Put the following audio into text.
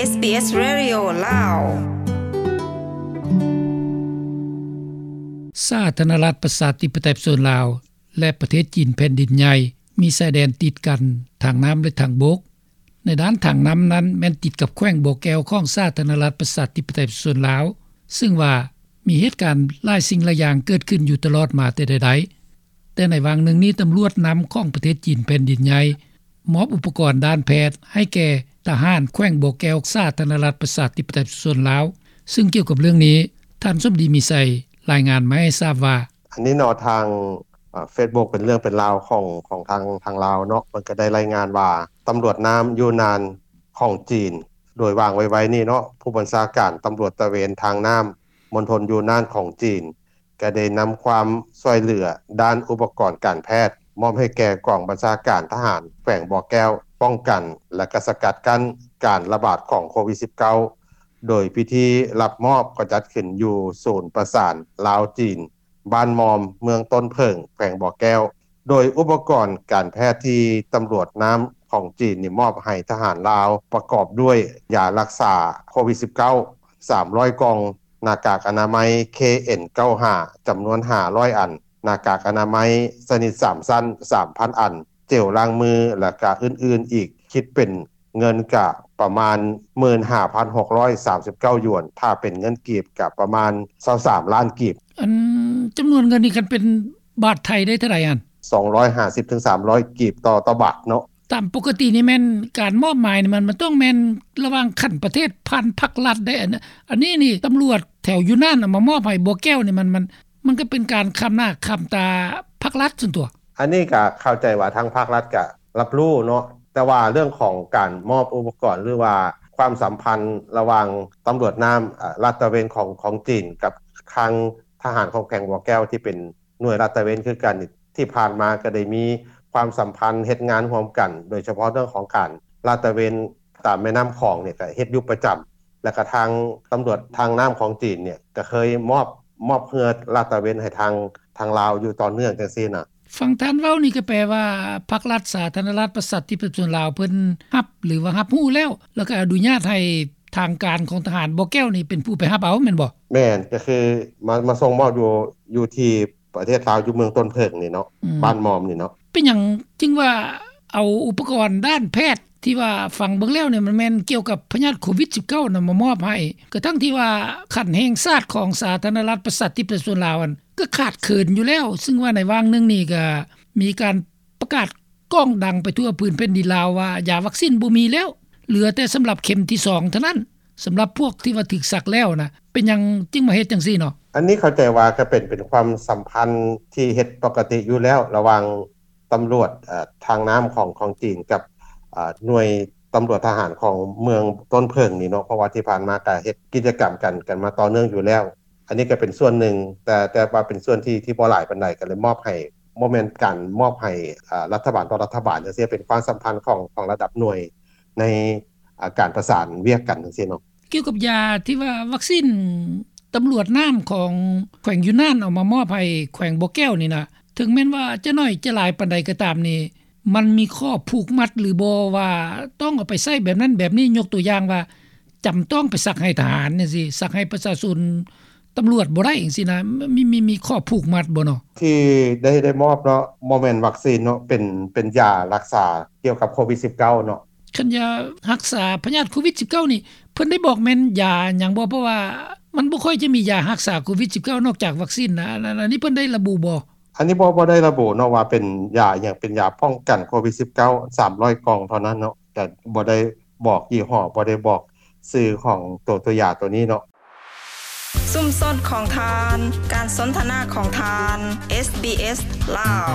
ເອສບີເອສ Radio ລາວ. ສາທາລະນະລັດ ປະຊາທິປະໄຕ ປະຊາຊົນລາວ ແລະ ປະເທດຈີນ ແຜ່ນດິນໃຫຍ່ ມີຊາຍແດນຕິດກັນ ທາງນ້ຳ ແລະ ທາງບົກ. ໃນດ້ານທາງນ້ຳນັ້ນ ແມ່ນຕິດກັບແຂວງບໍ່ແກ້ວ ຂອງສາທາລະນະລັດ ປະຊາທິປະໄຕ ປະຊາຊົນລາວ, ເຊິ່ງວ່າມີເຫດການຫຼາຍສິ່ງຫຼາຍຢ່າງເກີດຂຶ້ນຢູ່ຕະຫຼອດມາແຕ່ໃດໆ. ແຕ່ໃນຫວ່າງໜຶ່ງນີ້ ຕຳຫຼວດນ້ຳຂອງປະເທດຈີນ ແຜ່ນດິນໃຫຍ່ ມອບອຸປະກອນດ້ານແພດໃຫ້ແກ່ທະຫານແຂວງບໍ່ແກ້ວ ສາທາລະນະລັດ ປະຊາທິປະໄຕ ປະຊາຊົນລາວ. ເຊິ່ງກ່ຽວກັບເລື່ອງນີ້ ທ່ານ ສົມດີ ມີໄຊ ລາຍງານມາໃຫ້ຊາບວ່າ: ອັນນີ້ເນາະ ທາງ ເອີ ເຟສບຸກ ເປັນເລື່ອງເປັນລາວຂອງ ຂອງທາງ ທາງລາວເນາະ ເພິ່ນກໍໄດ້ລາຍງານວ່າ ຕຳຫຼວດນ້ຳຢູນານຂອງຈີນ ໂດຍວ່າງໄວໆນີ້ເນາະ ຜູ້ບັນຊາການຕຳຫຼວດຕະເວນທາງນ້ຳ ມົນທົນຢູນານຂອງຈີນ ກໍໄດ້ນຳຄວາມຊ່ວຍເຫຼືອດ້ານອຸປະກອນການແພດ ມອບໃຫ້ແກ່ກອງບັນຊາການທະຫານແຂວງບໍ່ແກ້ວ ປ້ອງກັນ ແລະ ກະສະກັດກັ້ນການລະບາດຂອງໂຄວິດສິບເກົ້າ ໂດຍພິທີຮັບມອບກໍຈັດຂຶ້ນຢູ່ສູນປະສານລາວ-ຈີນ ບ້ານມອມ ເມືອງຕົ້ນເຜິ້ງ ແຂວງບໍ່ແກ້ວ. ໂດຍອຸປະກອນການແພດທີ່ຕຳຫຼວດນ້ຳຂອງຈີນນີ້ມອບໃຫ້ທະຫານລາວ ປະກອບດ້ວຍ ຢາລັກສາໂຄວິດສິບເກົ້າ ສາມຮ້ອຍກ່ອງ, ໜ້າກາກອະນາໄມ ເຄເອັນເກົ້າຫ້າ ຈຳນວນຫ້າຮ້ອຍອັນ, ໜ້າກາກອະນາໄມຊະນິດສາມຊັ້ນ ສາມພັນອັນ, ເຈວລ້າງມື ແລະ ກະອື່ນໆອີກ ຄິດເປັນເງິນກະປະມານໝື່ນຫ້າພັນຫົກຮ້ອຍສາມສິບເກົ້າຢວນ, ຖ້າເປັນເງິນກີບກະປະມານຊາວສາມລ້ານກີບ. ອັນຈຳນວນເງິນນີ້ ຄັນເປັນບາດໄທໄດ້ເທົ່າໃດຫັ້ນ? ສອງຮ້ອຍຫ້າສິບເຖິງສາມຮ້ອຍກີບຕໍ່ ຕໍ່ບາດເນາະ. ຕາມປົກກະຕິນີ້ແມ່ນການມອບໝາຍນີ້ ມັນ ມັນຕ້ອງແມ່ນລະຫວ່າງຂັ້ນປະເທດ ຜ່ານພັກລັດໄດ໋. ອັນ ອັນນີ້ນີ້ ຕຳຫຼວດແຖວຢູ່ນັ້ນນະ ມາມອບໃຫ້ບໍ່ແກ້ວນີ້ ມັນ ມັນ ມັນກໍເປັນການຄ້ຳໜ້າຄ້ຳຕາພັກລັດຊັ້ນຕົວະ. ອັນນີ້ກໍເຂົ້າໃຈວ່າທາງພັກລັດກໍຮັບຮູ້ເນາະ, ແຕ່ວ່າເລື່ອງຂອງການມອບອຸປະກອນ ຫຼືວ່າຄວາມສຳພັນລະຫວ່າງຕຳຫຼວດນ້ຳ ເອີ ລາດຕະເວນຂອງ ຂອງຈີນ ກັບທາງທະຫານຂອງແຂວງບໍ່ແກ້ວ ທີ່ເປັນໜ່ວຍລາດຕະເວນຄືກັນນີ້ ທີ່ຜ່ານມາກໍໄດ້ມີຄວາມສຳພັນເຮັດງານຮ່ວມກັນ, ໂດຍສະເພາະເລື່ອງຂອງການລາດຕະເວນຕາມແມ່ນ້ຳຂອງນີ້ກໍເຮັດຢູ່ປະຈຳ. ແລ້ວກໍທາງຕຳຫຼວດທາງນ້ຳຂອງຈີນນີ້ກໍເຄີຍມອບ ມອບເຮືອລາດຕະເວນໃຫ້ທາງ ທາງລາວຢູ່ຕໍ່ເນື່ອງຈັ່ງຊີ້ນະ. ຟັງທ່ານເວົ້ານີ້ກໍແປວ່າ ພັກລັດສາທາລະນະລັດປະຊາທິປະຊາຊົນລາວ ເພິ່ນຮັບ ຫຼືວ່າຮັບຮູ້ແລ້ວ ແລ້ວກໍອະນຸຍາດໃຫ້ທາງການຂອງທະຫານບໍ່ແກ້ວນີ້ ເປັນຜູ້ໄປຮັບເອົາແມ່ນບໍ່? ແມ່ນ, ກໍຄືມາ ມາສົ່ງມອບຢູ່ ຢູ່ທີ່ ປະເທດລາວ ຢູ່ເມືອງຕົ້ນເຜິ້ງນີ້ເນາະ, ອືມ ບ້ານມອມນີ້ເນາະ. ເປັນຫຍັງຈຶ່ງວ່າເອົາອຸປະກອນດ້ານແພດທີ່ວ່າຟັງເບິ່ງແລ້ວນີ້ ມັນແມ່ນກ່ຽວກັບພະຍາດໂຄວິດສິບເກົ້ານະ ມາມອບໃຫ້ ກະທັ່ງທີ່ວ່າຂັ້ນແຫ່ງຊາດຂອງສາທາລະນະລັດປະຊາທິປະຊາຊົນລາວຫັ້ນ ກະຂາດເຂີນຢູ່ແລ້ວ, ເຊິ່ງວ່າໃນຫວ່າງໜຶ່ງນີ້ກະມີການປະກາດກ້ອງດັງໄປທົ່ວພື້ນແຜ່ນດິນລາວວ່າ ຢາວັກຊີນບໍ່ມີແລ້ວ, ເຫຼືອແຕ່ສຳລັບເຂັມທີສອງເທົ່ານັ້ນ. ສຳລັບພວກທີ່ວ່າຖືກສັກແລ້ວນະ ເປັນຫຍັງຈຶ່ງມາເຮັດຈັ່ງຊີ້ເນາະ? ອັນນີ້ເຂົ້າໃຈວ່າກໍເປັນ ເປັນຄວາມສຳພັນທີ່ເຮັດປົກກະຕິຢູ່ແລ້ວ ລະຫວ່າງຕຳຫຼວດ ເອີ ທາງນ້ຳຂອງ ຂອງຈີນກັບ ເອີ ໜ່ວຍຕຳຫຼວດທະຫານຂອງເມືອງຕົ້ນເຜິ້ງນີ້ເນາະ, ເພາະວ່າທີ່ຜ່ານມາກໍເຮັດກິດຈະກຳກັນ ກັນມາຕໍ່ເນື່ອງຢູ່ແລ້ວ. ອັນນີ້ກໍເປັນສ່ວນໜຶ່ງ ແຕ່ ແຕ່ວ່າເປັນສ່ວນທີ່ ທີ່ບໍ່ຫຼາຍປານໃດ ກໍເລີຍມອບໃຫ້ ບໍ່ແມ່ນການມອບໃຫ້ ເອີ ລັດຖະບານຕໍ່ລັດຖະບານຈັ່ງຊີ້, ເປັນຄວາມສຳພັນຂອງ ຂອງລະດັບໜ່ວຍໃນ ອ່າ ການປະສານວຽກກັນຈັ່ງຊີ້ເນາະ. ກ່ຽວກັບຢາທີ່ວ່າວັກຊີນຕຳຫຼວດນ້ຳຂອງແຂວງຢູນານເອົາມາມອບໃຫ້ແຂວງບໍ່ແກ້ວນີ້ນະ, ເຖິງແມ່ນວ່າຈະໜ້ອຍຈະຫຼາຍປານໃດກໍຕາມນີ້ ມັນມີຂໍ້ຜູກມັດຫຼືບໍ່ວ່າຕ້ອງເອົາໄປໃຊ້ແບບນັ້ນແບບນີ້? ຍົກຕົວຢ່າງວ່າ ຈຳຕ້ອງໄປສັກໃຫ້ທະຫານຈັ່ງຊີ້, ສັກໃຫ້ປະຊາຊົນ ຕຳຫຼວດບໍ່ໄດ້ຈັ່ງຊີ້ນະ, ມີ ມີ ມີຂໍ້ຜູກມັດບໍ່ເນາະ? ທີ່ໄດ້ ໄດ້ມອບເນາະ ບໍ່ແມ່ນວັກຊີນເນາະ, ເປັນ ເປັນຢາຮັກສາກ່ຽວກັບໂຄວິດສິບເກົ້າເນາະ. ຄັນຢາຮັກສາພະຍາດໂຄວິດສິບເກົ້ານີ້ ເພິ່ນໄດ້ບອກແມ່ນຢາຫຍັງບໍ່? ເພາະວ່າມັນບໍ່ຄ່ອຍຈະມີຢາຮັກສາໂຄວິດສິບເກົ້ານອກຈາກວັກຊີນນະ. ອັນ ອັນ ອັນນີ້ເພິ່ນໄດ້ລະບຸບໍ່? ອັນນີ້ບໍ່ ບໍ່ໄດ້ລະບຸເນາະວ່າເປັນຢາຫຍັງ, ເປັນຢາປ້ອງກັນໂຄວິດສິບເກົ້າ ສາມຮ້ອຍກ່ອງເທົ່ານັ້ນເນາະ, ແຕ່ບໍ່ໄດ້ ບອກຍີ່ຫໍ້, ບໍ່ໄດ້ບອກຊື່ຂອງໂຕ ໂຕຢາໂຕນີ້ເນາະ. ຊຸມຊົນຂອງທ່ານ, ການສົນທະນາຂອງທ່ານ, ເອສບີເອສ ລາວ.